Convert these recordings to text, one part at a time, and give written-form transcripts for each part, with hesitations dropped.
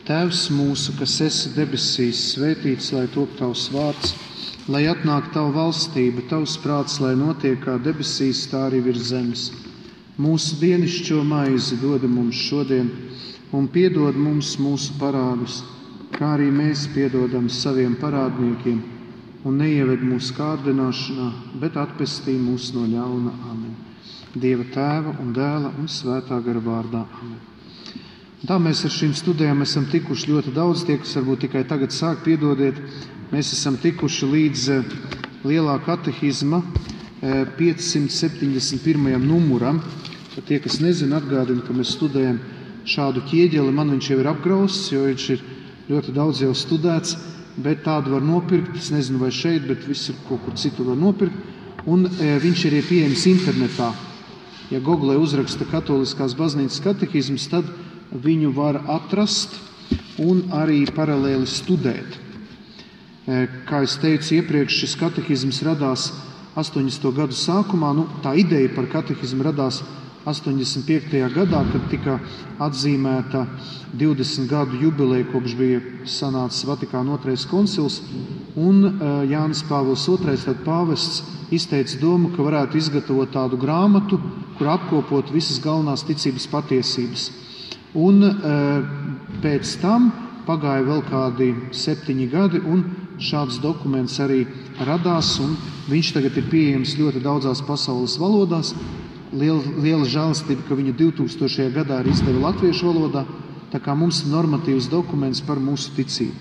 Tēvs mūsu, kas esi debesīs, svētīts, lai top tavs vārds, lai atnāk tava valstība, tavs prāts, lai notiek kā debesīs, tā arī virs zemes. Mūsu dienascho maizi dod mums šodien, un piedod mums mūsu parādus, kā arī mēs piedodam saviem parādniekiem, un neieved mūsu kārdināšanā, bet atpestī mūs no ļauna. Amen. Dieva Tēva un Dēla un Svētā gara vārdā. Amen. Tā mēs ar šīm studijām esam tikuši ļoti daudz, tie, kas varbūt tikai tagad sāk, piedodiet, mēs esam tikuši līdz lielā katehizma 571. numuram. Tie, kas nezina, atgādina, ka mēs studējam šādu ķieģeli, man viņš jau ir apgrausts, jo viņš ir ļoti daudz jau studēts, bet tādu var nopirkt, es nezinu vai šeit, bet visur kaut kur citur var nopirkt, un viņš ir pieejams internetā. Ja Google uzraksta Katoliskās baznīcas katehizms, tad viņu var atrast un arī paralēli studēt. Kā es teicu iepriekš, šis katehizms radās 80. gadu sākumā. Tā ideja par katehizmu radās 85. gadā, kad tika atzīmēta 20 gadu jubileja, kopš bija sanācis Vatikāna 2. koncils, un Jānis Pāvils II, tad pāvests, izteica domu, ka varētu izgatavot tādu grāmatu, kur apkopot visas galvenās ticības patiesības. Un pēc tam pagāja vēl kādi 7 gadi, un šāds dokuments arī radās, un viņš tagad ir pieejams ļoti daudzās pasaules valodās. Liela žēlastība, ka viņu 2000. gadā arī izdeva latviešu valodā, tā kā mums ir normatīvs dokuments par mūsu ticību.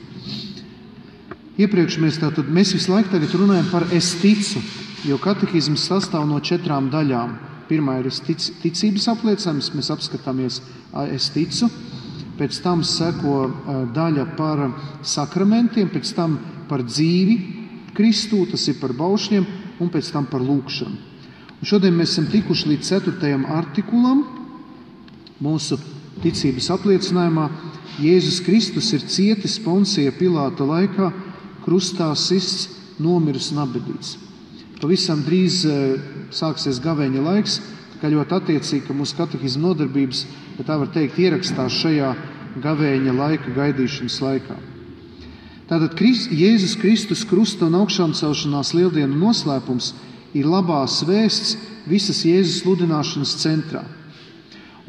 Iepriekš mēs visu laiku tagad runājam par es ticu, jo katehizms sastāv no 4 daļām. Pirmā ir ticības apliecinājums, mēs apskatāmies es ticu, pēc tam seko daļa par sakramentiem, pēc tam par dzīvi Kristū, tas ir par baušļiem, un pēc tam par lūgšanu. Un šodien mēs esam tikuši līdz 4. artikulam mūsu ticības apliecinājumā. Jēzus Kristus ir cietis Poncija Pilāta laikā, krustā sists, nomiris un apbedīts. Pavisam drīz sāksies gavēņa laiks, kā ļoti attiecīgi, ka mūsu katehizma nodarbības, ja tā var teikt, ierakstās šajā gavēņa laika gaidīšanas laikā. Tātad Jēzus Kristus krusta un augšām celšanās lieldienu noslēpums ir labās vēsts visas Jēzus sludināšanas centrā.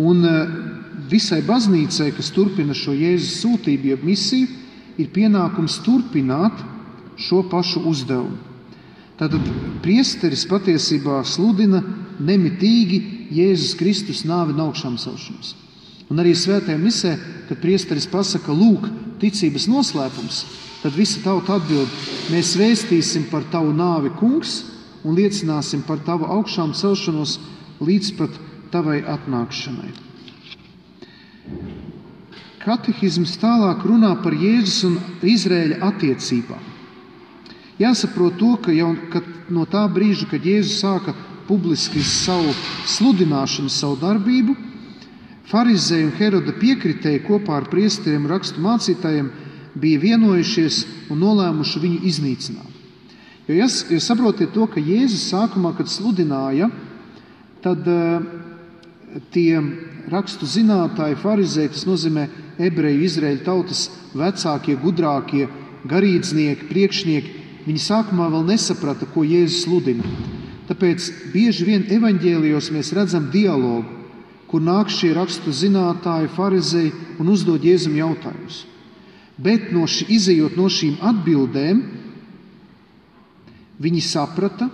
Un visai baznīcai, kas turpina šo Jēzus sūtību, jeb misiju, ir pienākums turpināt šo pašu uzdevumu. Tātad priesteris patiesībā sludina nemitīgi Jēzus Kristus nāvi un augšām celšanos. Un arī svētajā misē, kad priesteris pasaka, lūk, ticības noslēpums, tad visa tauta atbild, mēs vēstīsim par tavu nāvi, kungs, un liecināsim par tavu augšām celšanos līdz pat tavai atnākšanai. Katehizms tālāk runā par Jēzus un Izraēļa attiecībām. Jāsaprot to, ka no tā brīža, kad Jēzus sāka publiski savu sludināšanu, savu darbību, farizēji un Heroda piekritēji kopā ar priesteriem rakstu mācītājiem bija vienojušies un nolēmuši viņu iznīcināt. Jo saprotiet to, ka Jēzus sākumā, kad sludināja, tad tie rakstu zinātāji, farizēji, tas nozīmē ebreju, Izraēļu tautas vecākie, gudrākie, garīdznieki, priekšnieki, viņi sākumā vēl nesaprata, ko Jēzus sludina. Tāpēc bieži vien evaņģēlijos mēs redzam dialogu, kur nāk šie rakstu zinātāji, farizēji un uzdod Jēzum jautājumus. Bet izejot no šīm atbildēm, viņi saprata,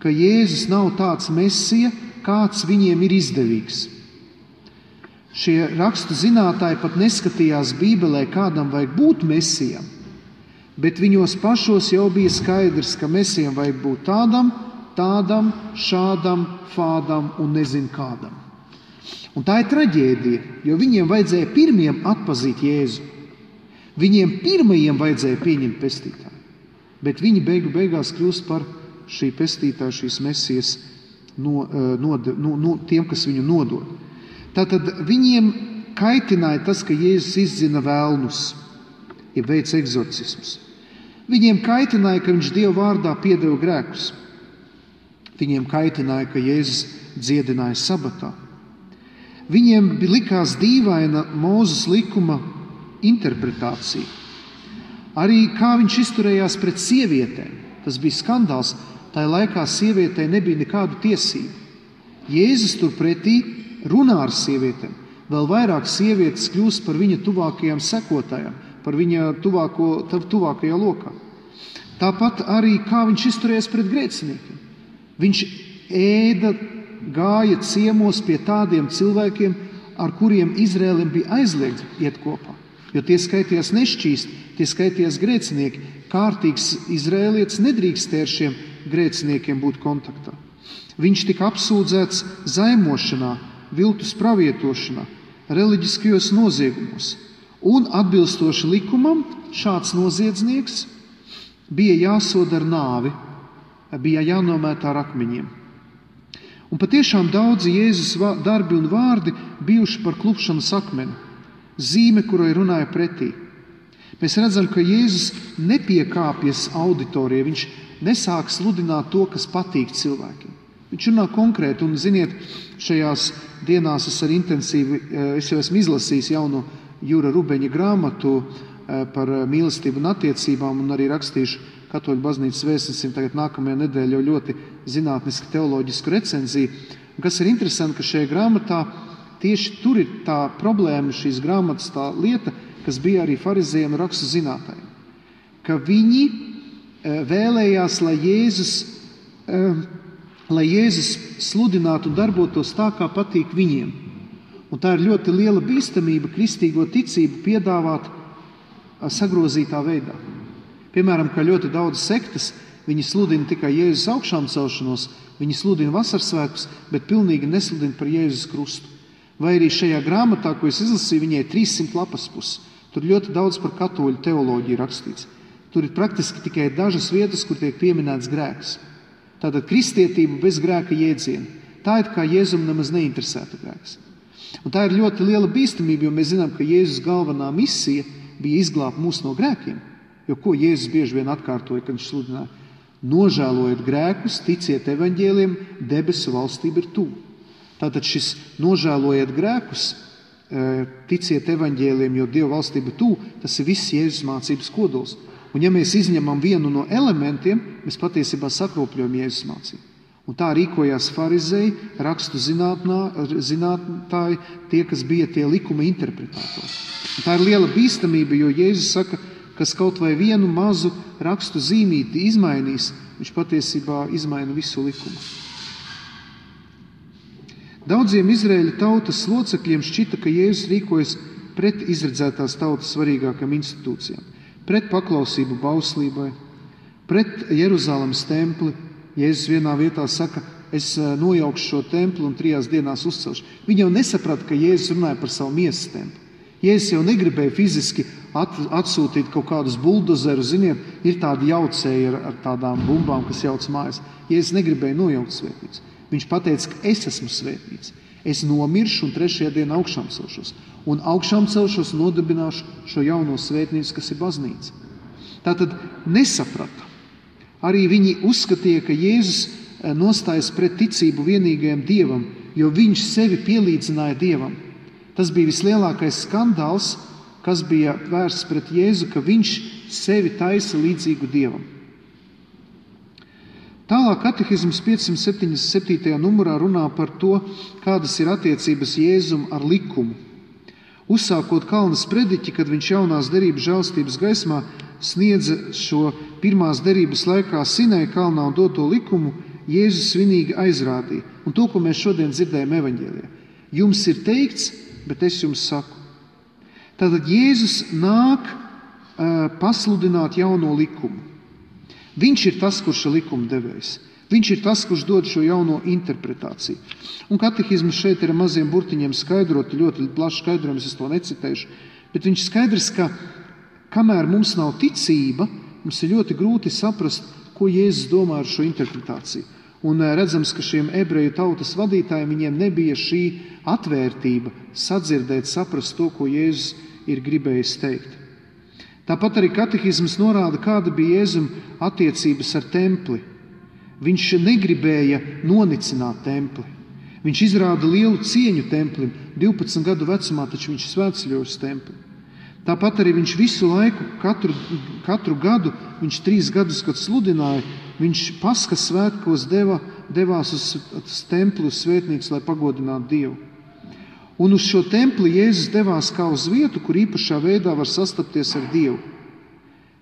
ka Jēzus nav tāds mesija, kāds viņiem ir izdevīgs. Šie rakstu zinātāji pat neskatījās Bībelē, kādam vajag būt mesijam, bet viņos pašos jau bija skaidrs, ka mesijam vajag būt tādam, šādam, fādam un nezinu kādam. Un tā ir traģēdija, jo viņiem vajadzēja pirmiem atpazīt Jēzu. Viņiem pirmajiem vajadzēja pieņemt pestītāju. Bet viņi beigās kļūst par šī pestītāja, šīs mesijas tiem, kas viņu nodod. Tātad viņiem kaitināja tas, ka Jēzus izdzina vēlnus, ja veic egzorcismus. Viņiem kaitināja, ka viņš Dieva vārdā piedeva grēkus. Viņiem kaitināja, ka Jēzus dziedināja sabatā. Viņiem likās dīvaina Mūzes likuma interpretāciju. Arī kā viņš izturējās pret sievietēm. Tas bija skandāls. Tajā laikā sievietei nebija nekādu tiesību. Jēzus turpretī runā ar sievietēm. Vēl vairāk sievietes kļūst par viņa tuvākajām sekotājām, par viņa tuvākajā lokā. Tāpat arī kā viņš izturējās pret grēciniekiem. Viņš gāja ciemos pie tādiem cilvēkiem, ar kuriem Izraēlim bija aizliegts iet kopā. Jo tie skaitījās nešķīsti, tie skaitījās grēcinieki. Kārtīgs izraēlietis nedrīkstē ar šiem grēciniekiem būt kontaktā. Viņš tika apsūdzēts zaimošanā, viltus pravietošanā, reliģiskajos noziegumos. Un atbilstoši likumam šāds noziedznieks bija jāsoda ar nāvi, bija jānomētā ar akmeņiem. Un patiešām daudzi Jēzus darbi un vārdi bijuši par klupšanas akmeni, zīme, kurai runāja pretī. Mēs redzam, ka Jēzus nepiekāpjas auditorijai, viņš nesāk sludināt to, kas patīk cilvēkiem. Viņš runā konkrēti, un ziniet, šajās dienās es jau esmu izlasījis jauno Jūra Rubeņa grāmatu par mīlestību un attiecībām, un arī rakstīšu Katoļu baznīcas vēstnesim tagad nākamajā nedēļā jau ļoti zinātnisku teoloģisku recenziju. Kas ir interesanti, ka šajā grāmatā tieši tur ir tā problēma, šīs grāmatas tā lieta, kas bija arī farizējiem un rakstu zinātājiem. Ka viņi vēlējās, lai Jēzus sludinātu un darbotos tā, kā patīk viņiem. Un tā ir ļoti liela bīstamība kristīgo ticību piedāvāt sagrozītā veidā. Piemēram, kā ļoti daudz sektas, viņi sludina tikai Jēzus augšām celšanos, viņi sludina vasarsvētkus, bet pilnīgi nesludina par Jēzus krustu. Vai arī šajā grāmatā, ko es izlasīju, viņai 300 lapas puses. Tur ļoti daudz par katoļu teoloģiju rakstīts. Tur ir praktiski tikai dažas vietas, kur tiek pieminēts grēks. Tātad kristietība bez grēka jēdziena. Tā ir kā Jēzum nemaz neinteresēta grēks. Un tā ir ļoti liela bīstamība, jo mēs zinām, ka Jēzus galvenā misija bija izglābt mūs no grēkiem. Jo ko Jēzus bieži vien atkārtoja, kad viņš sludināja? Nožēlojiet grēkus, ticiet evaņģēliem, debesu valstība ir tuvu. Tātad šis nožēlojiet grēkus, ticiet evaņģēliem, jo Dieva valstība ir tuvu, tas ir viss Jēzus mācības kodols. Un ja mēs izņemam vienu no elementiem, mēs patiesībā sakropļojam Jēzus mācību. Un tā rīkojās farizēji, rakstu zinātāji, tie, kas bija tie likuma interpretātori. Un tā ir liela bīstamība, jo Jēzus saka, kas kaut vai vienu mazu rakstu zīmīti izmainīs, viņš patiesībā izmaina visu likumu. Daudziem Izraēļa tautas locekļiem šķita, ka Jēzus rīkojas pret izredzētās tautas svarīgākām institūcijām, pret paklausību bauslībai, pret Jeruzalemes templi. Jēzus vienā vietā saka, es nojaukšu šo templi un 3 dienās uzcelšu. Viņi jau nesaprata, ka Jēzus runāja par savu miesas templi. Jēzus jau negribēja fiziski atsūtīt kaut kādus buldozerus, ziniet, ir tādi jaucēji ar tādām bumbām, kas jauc mājas. Jēzus negribēja nojaukt svētnīcu. Viņš pateica, ka es esmu svētnīca. Es nomiršu un 3. dienā augšām celšos. Un augšām celšos un nodibināšu šo jauno svētnīcu, kas ir baznīca. Tātad nesaprata. Arī viņi uzskatīja, ka Jēzus nostājas pret ticību vienīgajam Dievam, jo viņš sevi pielīdzināja Dievam. Tas bija vislielākais skandāls, kas bija vērsts pret Jēzu, ka viņš sevi taisa līdzīgu Dievam. Tālāk katehisms 577. numurā runā par to, kādas ir attiecības Jēzum ar likumu. Uzsākot kalna sprediķi, kad viņš jaunās derības žēlstības gaismā sniedza šo pirmās derības laikā Sinai kalnā un doto likumu, Jēzus svinīgi aizrādīja. Un to, ko mēs šodien dzirdējam evaņģēlijā. Jums ir teikts, bet es jums saku. Tātad Jēzus nāk pasludināt jauno likumu. Viņš ir tas, kurš ir likuma devējs. Viņš ir tas, kurš dod šo jauno interpretāciju. Un katehisms šeit ir ar maziem burtiņiem skaidrot, ļoti plašs skaidrojums, es to necitēšu, bet viņš skaidrs, ka kamēr mums nav ticība, mums ir ļoti grūti saprast, ko Jēzus domā ar šo interpretāciju. Un redzams, ka šiem ebreju tautas vadītājiem viņiem nebija šī atvērtība sadzirdēt, saprast to, ko Jēzus ir gribējis teikt. Tāpat arī katehisms norāda, kāda bija Jēzum attiecības ar templi. Viņš negribēja nonicināt templi. Viņš izrāda lielu cieņu templim. 12 gadu vecumā taču viņš svētceļoja uz templi. Tāpat arī viņš visu laiku, katru gadu, viņš 3 gadus, kad sludināja, viņš Paskas svētkos devās uz templi, uz svētnīcu, lai pagodinātu Dievu. Un uz šo templi Jēzus devās kā uz vietu, kur īpašā veidā var sastapties ar Dievu.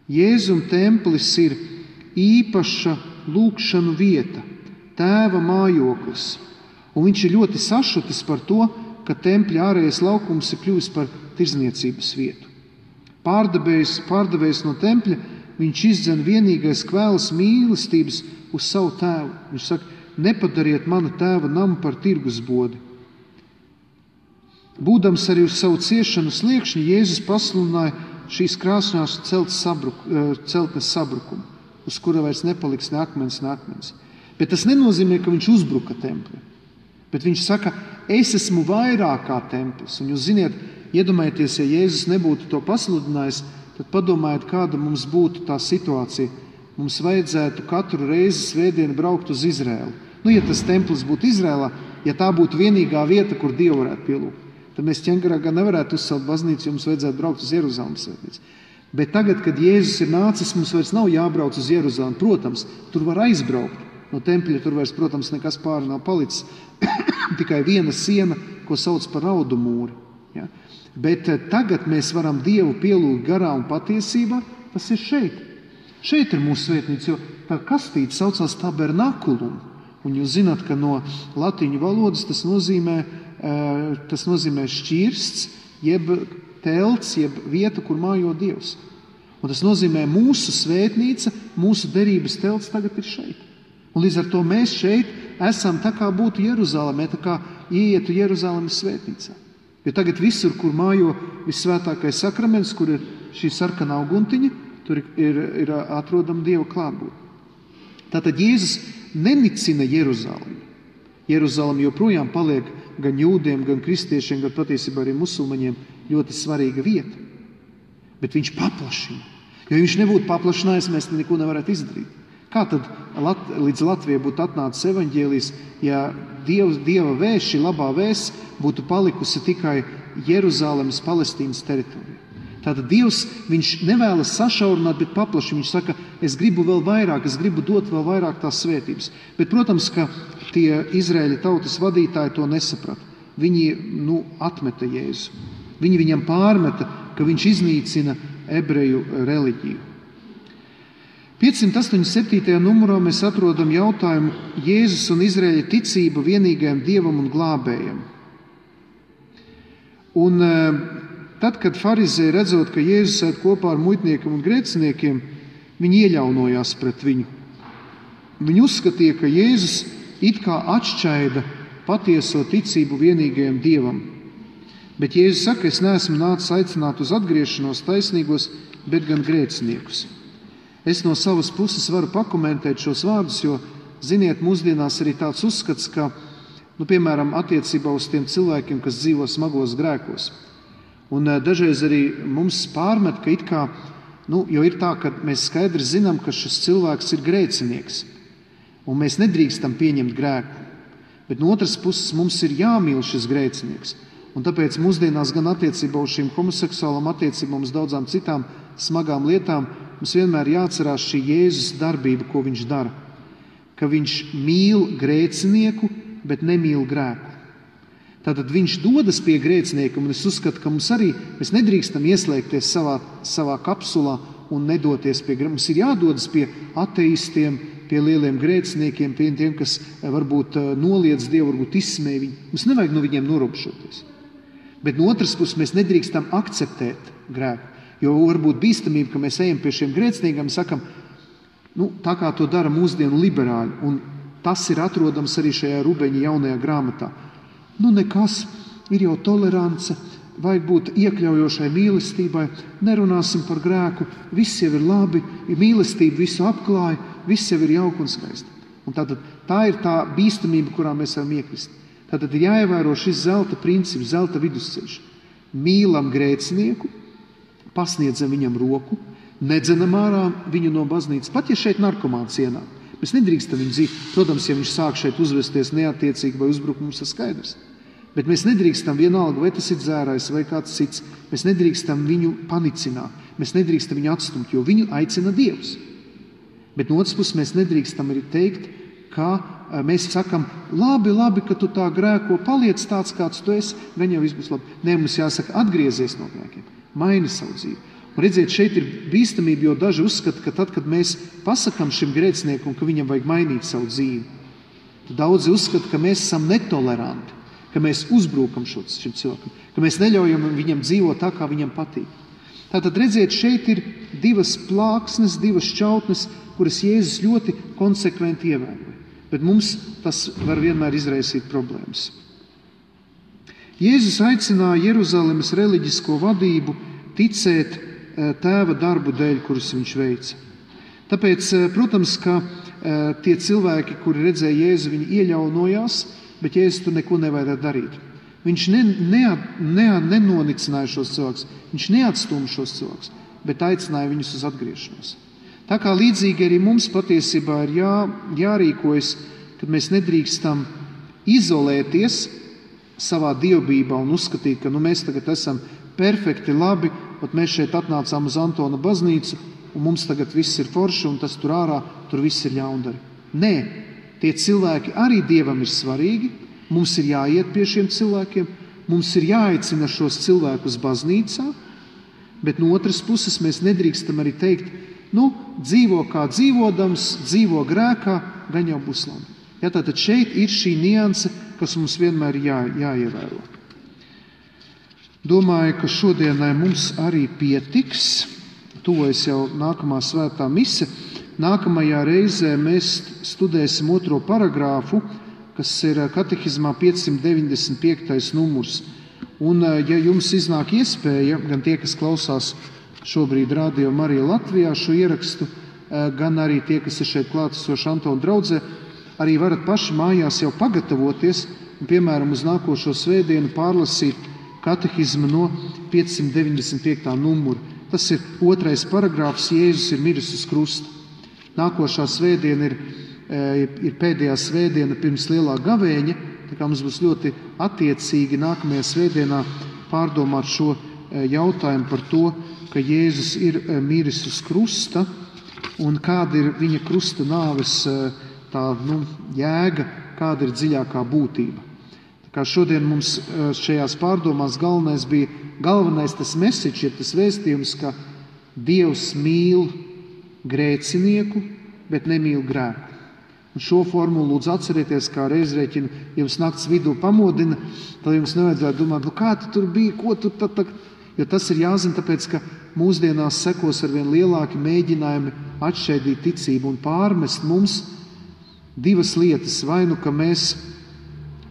Jēzum templis ir īpaša lūgšanu vieta, Tēva mājoklis. Un viņš ir ļoti sašutis par to, ka tempļa ārējais laukums ir kļuvis par tirdzniecības vietu. Pārdevējs no tempļa, viņš izdzen vienīgais kvēls mīlestības uz savu tēvu. Viņš saka, nepadariet mana tēva namu par tirgusbodi. Būdams arī uz savu ciešanu sliekšņi, Jēzus pasludināja šīs krāsnās celtnes sabrukumu, uz kura vairs nepaliks ne akmens. Bet tas nenozīmē, ka viņš uzbruka templi. Bet viņš saka, es esmu vairāk kā templis. Un jūs ziniet, iedomājieties, ja Jēzus nebūtu to pasludinājis, tad padomājiet, kāda mums būtu tā situācija. Mums vajadzētu katru reizi svētdienu braukt uz Izraēlu. Ja tas templis būtu Izraēlā, ja tā būtu vienīgā vieta, kur Dievu varētu pielūgt, tad mēs Ķengarā nevarētu uzcelt baznīcu, jo mums vajadzētu braukt uz Jeruzalemes svētnīcu. Bet tagad, kad Jēzus ir nācis, mums vairs nav jābrauc uz Jeruzalemi. Protams, tur var aizbraukt. No tempļa tur vairs, protams, nekas pāri nav palicis. Tikai viena siena, ko sauc par raudu mūri. Ja? Bet tagad mēs varam Dievu pielūgt garā un patiesībā. Tas ir šeit. Šeit ir mūsu svētnīca, jo tā kastīte saucās tabernakulum. Un jūs zināt, ka no latiņu valodas tas nozīmē šķirsts, jeb telts, jeb vieta, kur mājo Dievs. Un tas nozīmē mūsu svētnīca, mūsu derības telts tagad ir šeit. Un līdz ar to mēs šeit esam tā kā būtu Jeruzalemē, tā kā ieietu Jeruzalemes svētnīcā. Jo tagad visur, kur mājo vissvētākais sakraments, kur ir šī sarkanā uguntiņa, tur ir atrodama Dieva klātbūtne. Tātad Jēzus nenicina Jeruzalemi. Jeruzalem joprojām paliek gan jūdiem, gan kristiešiem, gan patiesībā arī musulmaņiem ļoti svarīga vieta. Bet viņš paplašina. Jo viņš nebūtu paplašinājis, mēs neko nevarētu izdarīt. Kā tad līdz Latvijai būtu atnācis evaņģēlijs, ja Dieva vēsts, šī labā vēsts, būtu palikusi tikai Jeruzalemes, Palestīnas teritorijā? Tātad Dievs, viņš nevēlas sašaurināt, bet paplašina. Viņš saka, es gribu vēl vairāk, es gribu dot vēl vairāk tās svētības. Bet, protams, ka tie Izraēļa tautas vadītāji to nesaprata. Viņi atmeta Jēzu. Viņi viņam pārmeta, ka viņš iznīcina ebreju reliģiju. 587. numurā mēs atrodam jautājumu Jēzus un Izraēļa ticība vienīgajam Dievam un glābējam. Un tad, kad farizēji redzot, ka Jēzus ēd kopā ar muitniekiem un grēciniekiem, viņi ieļaunojās pret viņu. Viņi uzskatīja, ka Jēzus it kā atšķaida patieso ticību vienīgajam Dievam. Bet Jēzus saka, es neesmu nācis aicināt uz atgriešanos taisnīgos, bet gan grēciniekus. Es no savas puses varu pakomentēt šos vārdus, jo, ziniet, mūsdienās arī tāds uzskats, ka, piemēram, attiecībā uz tiem cilvēkiem, kas dzīvo smagos grēkos. Un dažreiz arī mums pārmet, ka it kā, jo ir tā, ka mēs skaidri zinām, ka šis cilvēks ir grēcinieks, un mēs nedrīkstam pieņemt grēku. Bet no otras puses mums ir jāmīl šis grēcinieks. Un tāpēc mūsdienās gan attiecībā uz šīm homoseksuālām attiecībām, uz daudzām citām smagām lietām, mums vienmēr jāatcerās šī Jēzus darbība, ko viņš dara. Ka viņš mīl grēcinieku, bet nemīl grēku. Tātad viņš dodas pie grēcinieka, un es uzskatu, ka mēs nedrīkstam ieslēgties savā kapsulā un nedoties pie grēcinieka. Mums ir jādodas pie ateistiem, pie lieliem grēciniekiem, pie tiem, kas varbūt noliedz Dievu, varbūt izsmēj viņu. Mums nevajag no viņiem norobšoties. Bet no otras puses mēs nedrīkstam akceptēt grēku. Jo varbūt bīstamība, ka mēs ejam pie šiem grēciniekiem un sakam, tā kā to dara mūsdienu liberāļi. Un tas ir atrodams arī šajā Rubeņa jaunajā grāmatā. Nekas, ir jau tolerance, vajag būt iekļaujošai mīlestībai, nerunāsim par grēku, viss jau ir labi, mīlestība visu apklāja, viss jau ir jauki un skaisti. Un tā ir tā bīstamība, kurā mēs varam iekrist. Tātad ir jāievēro šis zelta princips, zelta vidusceļš. Mīlam grēcinieku, pasniedzam viņam roku, nedzenam ārā viņu no baznīcas. Pat ja šeit narkomāns ienāk, mēs nedrīkstam viņu dzīt. Protams, ja viņš sāk šeit uzvesties neattiecīgi vai uzbrukt, mums ir skaidrs. Bet mēs nedrīkstam vienalga, vai tas ir dzērājs vai kāds cits, mēs nedrīkstam viņu panicināt, mēs nedrīkstam viņu atstumt, jo viņu aicina Dievs. Bet no otras puses mēs nedrīkstam arī teikt, ka mēs sakam, labi, ka tu tā grēko, paliec tāds, kāds tu esi, gan jau viss būs labi. Nē, mums jāsaka, atgriezies no grēkiem, maini savu dzīvi. Un redziet, šeit ir bīstamība, jo daži uzskata, ka tad, kad mēs pasakam šim grēciniekam, ka viņam vajag mainīt savu dzīvi, tad daudzi uzskata, ka mēs esam netoleranti, ka mēs uzbrukam šim cilvēkam, ka mēs neļaujam viņam dzīvot tā, kā viņam patīk. Tātad, redziet, šeit ir divas plāksnes, divas šķautnes, kuras Jēzus ļoti konsekventi ievēroja. Bet mums tas var vienmēr izraisīt problēmas. Jēzus aicināja Jeruzalemes reliģisko vadību ticēt Tēva darbu dēļ, kurus viņš veica. Tāpēc, protams, ka tie cilvēki, kuri redzēja Jēzu, viņi ieļaunojās, bet Jēzus tur neko nevajadzētu darīt. Viņš nenonicināja šos cilvēkus, viņš neatstūma šos cilvēkus, bet aicināja viņus uz atgriešanos. Tā kā līdzīgi arī mums patiesībā ir jārīkojas, kad mēs nedrīkstam izolēties savā dievbībā un uzskatīt, ka mēs tagad esam perfekti labi, un mēs šeit atnācām uz Antona baznīcu, un mums tagad viss ir forši, un tas tur ārā, tur viss ir ļaundari. Nē, tie cilvēki arī Dievam ir svarīgi, mums ir jāiet pie šiem cilvēkiem, mums ir jāaicina šos cilvēkus baznīcā, bet no otras puses mēs nedrīkstam arī teikt, dzīvo kā dzīvodams, dzīvo grēkā, gan jau būs labi. Tātad šeit ir šī nianse, kas mums vienmēr jāievēro. Domāju, ka šodienai mums arī pietiks. Tuvojas jau nākamā svētā mise. Nākamajā reizē mēs studēsim 2. paragrāfu, kas ir katehizmā 595. numurs. Un, ja jums iznāk iespēja, gan tie, kas klausās šobrīd Radio Marija Latvijā šo ierakstu, gan arī tie, kas ir šeit klātesoši Antona draudzē, arī varat paši mājās jau pagatavoties un, piemēram, uz nākošo svētdienu pārlasīt katehizmu no 595. numura. Tas ir 2. paragrāfs, Jēzus ir miris uz krusta. Nākošā svētdiena ir pēdējā svētdiena pirms lielā gavēņa, tā kā mums būs ļoti attiecīgi nākamajā svētdienā pārdomāt šo jautājumu par to, ka Jēzus ir miris uz krusta un kāda ir viņa krusta nāves jēga, kāda ir dziļākā būtība. Tā kā šodien mums šajās pārdomās galvenais tas message, ir tas vēstījums, ka Dievs mīl grēcinieku, bet nemīl grēku. Un šo formulu lūdzu atcerieties, kā reizrēķinu jums nakts vidū pamodina, tad jums nevajadzētu domāt, kā tu tur bija, ko tu tad. Jo tas ir jāzina, tāpēc, ka mūsdienās sekos arvien lielāki mēģinājumi atšķaidīt ticību un pārmest mums divas lietas. Vai nu, ka mēs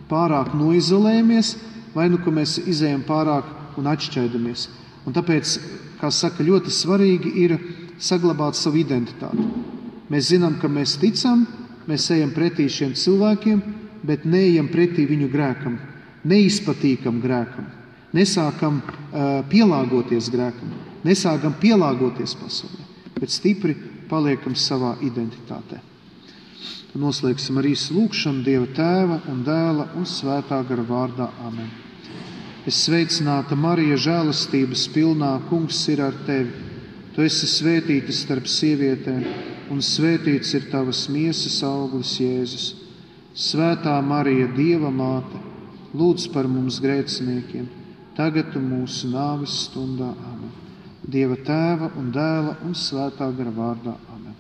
pārāk noizolējamies, vai nu, ka mēs izējam pārāk un atšķaidamies. Un tāpēc, kā saka, ļoti svarīgi ir saglabāt savu identitāti. Mēs zinām, ka mēs ticam, mēs ejam pretī šiem cilvēkiem, bet neejam pretī viņu grēkam, neizpatīkam grēkam. Nesākam pielāgoties grēkam, nesākam pielāgoties pasaulē, bet stipri paliekam savā identitātē. Noslēgsim arī lūgšanu Dieva Tēva un Dēla un Svētā gara vārdā. Amen. Es sveicināta Marija, žēlastības pilnā, Kungs ir ar tevi. Tu esi svētīta starp sievietēm, un svētīts ir tavas miesas auglis Jēzus. Svētā Marija, Dieva māte, lūdz par mums grēciniekiem, tagad un mūsu nāves stundā. Amen. Dieva Tēva un Dēla un Svētā gara vārdā. Amen.